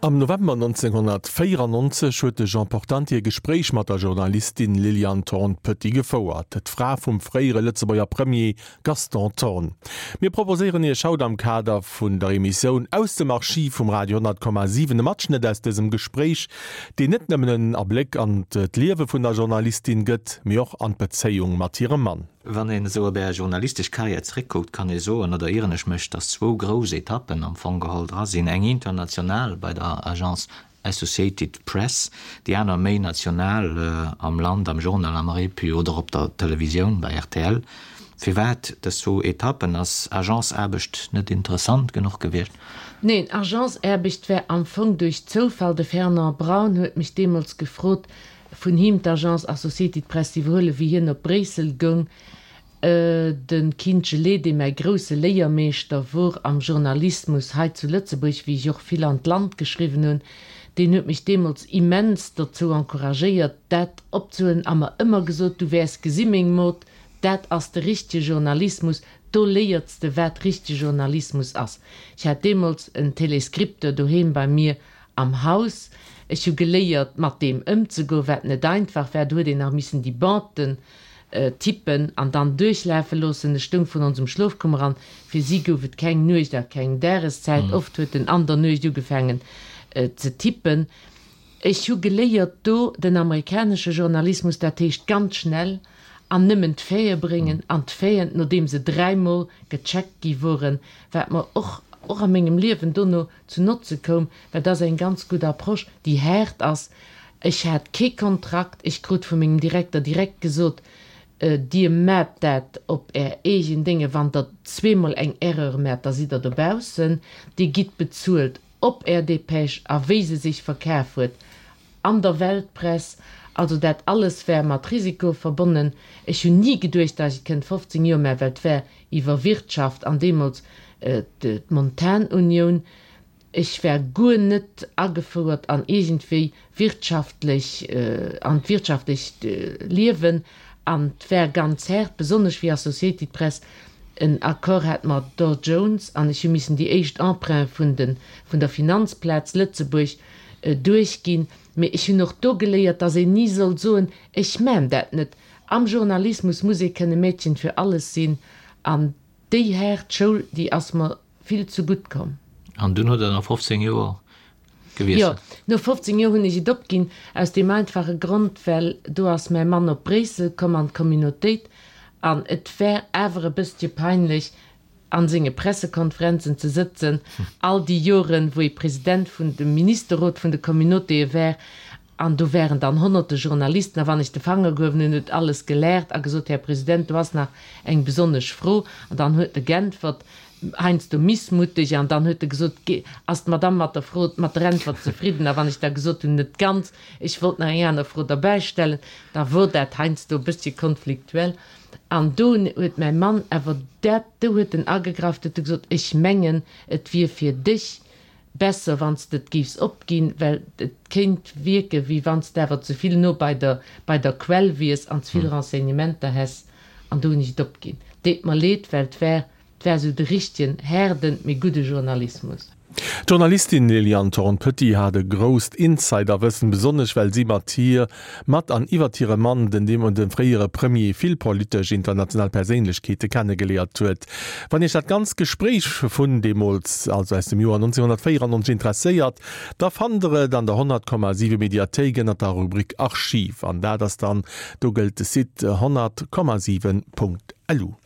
Am November 1994 huet de Jean Portante e Gespréich mat der Journalistin Liliane Thorn-Petit gefouert, d'Fra vum fréiere Lëtzebuerger Premier Gaston Thorn. Mir proposéieren Iech haut am Kader vun der Emissioun Aus dem Archiv vum Radio 100,7 e Matschnëtt aus dësem Gespréich, deen net nëmmen en Abléck an d'Liewe vun der Journalistin gëtt, mee och an d'Bezéiung mat hirem Mann. Wann een esou op Är journalistesch Karriär zréckkuckt, kann ee soen, oder ieren ech mech, datt zwou grouss Etappen am Fong geholl dra sinn, eng international bei der Agence Associated Press, déi aner méi national am Land, am Journal, am Repu oder op der Televisioun bei rtl. Firwat dës zwou Etappen? Ass Agenceaarbecht net interessant genuch gewiescht? Neen, Agenceaarbecht war am Fong duerch Zoufall. De Fernand Braun huet mech deemools gefrot, vun him d'Agence Associated Press z'iwwerhuelen, wéi hien op Bréissel goung. De Kinche Lee, dee mäi grousse Léiermeeschter wor am Journalismus hei zu Lëtzebuerg, wéi ech och vill an d'Land geschriwwen hunn, deen huet mech deemools immens dozou encouragéiert, dat opzehuelen a mer ëmmer gesot, Du wäers gesi meng Mod, dat ass de richtege Journalismus, do léierts de wat richtege Journalismus ass. Ech hat deemools en Telescripteur doheem bei mir am Haus. Ech hu geléiert, mat deem ëmzegoen, wat net einfach war. Do huet een nach missen déi Banden tippen an dann duerchlafe loossen. Ech stoung vrun onsem Schlofkummer an fir si gouf et keng Nuecht a keng Dageszäit. Oft huet en an der Nuecht ugefaangen ze tippen. Ech hu geléiert do den amerikanesche Journalismus, dat heescht ganz schnell an nëmmen d'Faite bréngen an d'Faiten, nodeem se dräimol gecheckt gi woren, wat mer och och a mengem Liewen dono zu Notze koum, well dat ass eng ganz gutt Approche, déi haart ass. Ech hat kee Kontrakt, ech krut vu mengem Direkter direkt gesot, Dir maacht dat op Är eegen Dénge, wann Der zweemol eng Erreur maacht, da sidd Der dobaussen, Dir gitt bezuelt op Är Dépêche a wéi se sech verkaf huet an der Weltpress. Also dat alles war mat Risiko verbonnen. Ech hunn ni geduecht, datt ech et kënnt 15 Joer maachen, well et war iwwer Wirtschaft an deemools d'Montanunioun. Ech war guer net agefouert an iergendwéi wirtschaftlech, an d'wirtschaftlecht Liewen an 't war ganz haart, besonnesch wéi Associated Press en Accord hat mat Dow Jones an ech hu missen déi éischt Emprunte vun de vun der Finanzplaz Lëtzebuerg duerchginn. Mee ech hunn och do geléiert, dass een ni soll soen, ech maan dat net. Am Journalismus muss ee kënne Mädchen für alles sinn an déi haart Schoul, déi ass mer vill ze gutt komm. An dunn hutt Der no 15 Joer gewiesselt? Jo, no 15 Joer hunn ech et opginn, aus deem einfache Grond, well do ass mäi Mann op Bréissel komm an d'Communautéit an et war awer e bësschen peinlech, a senge Pressekonferenzen ze sëtzen, all déi Joren, wou e President vun dem Ministerrot vun de Communautéë war, an do waren dann honnerte Journalisten, a wann ech de Fanger gehuewen hunn, huet alles gelaacht a gesot, Här President, do ass nach eng besonnesch Fro. An dann huet e geäntwert, heiansdo missmutteg, an dann huet e gesot, Ass d'Madame mat der Fro, mat der Äntwert zefridden? A wann ech da gesot hunn, Net ganz, ech wollt nach eng aner Fro derbäistellen, da wor dat heiansdo e bëssche konfliktuell. An do huet mäi Mann awer dat, do huet en agegraff, huet e gesot, ech mengen, et wier fir dech besser, wann s de et géifs opginn, well et kéint wierken, wéi wann s de awer ze vill no bei der, bei der Quell wiers an ze vill Renseignementer häss. An do hunn ech et opginn. Deet mer leed, well et war 't war sou de richtegen, haarden, mee gudde Journalismus. D'Journalistin Liliane Thorn-Petit hat e grousst Insiderwëssen, besonnesch well si mat hir, mat an iwwert hire Mann, den deemolege fréiere Premier, vill politesch international Perséinlechkeete kennegeléiert huet. Wann Iech dat ganzt Gespréich vun deemools, also aus dem Joer 1994, interesséiert, da fannt der et an der 100,7 Mediathéik ënnert der Rubrik Archiv an dat ass dann, do gëllt de Site 100,7.lu.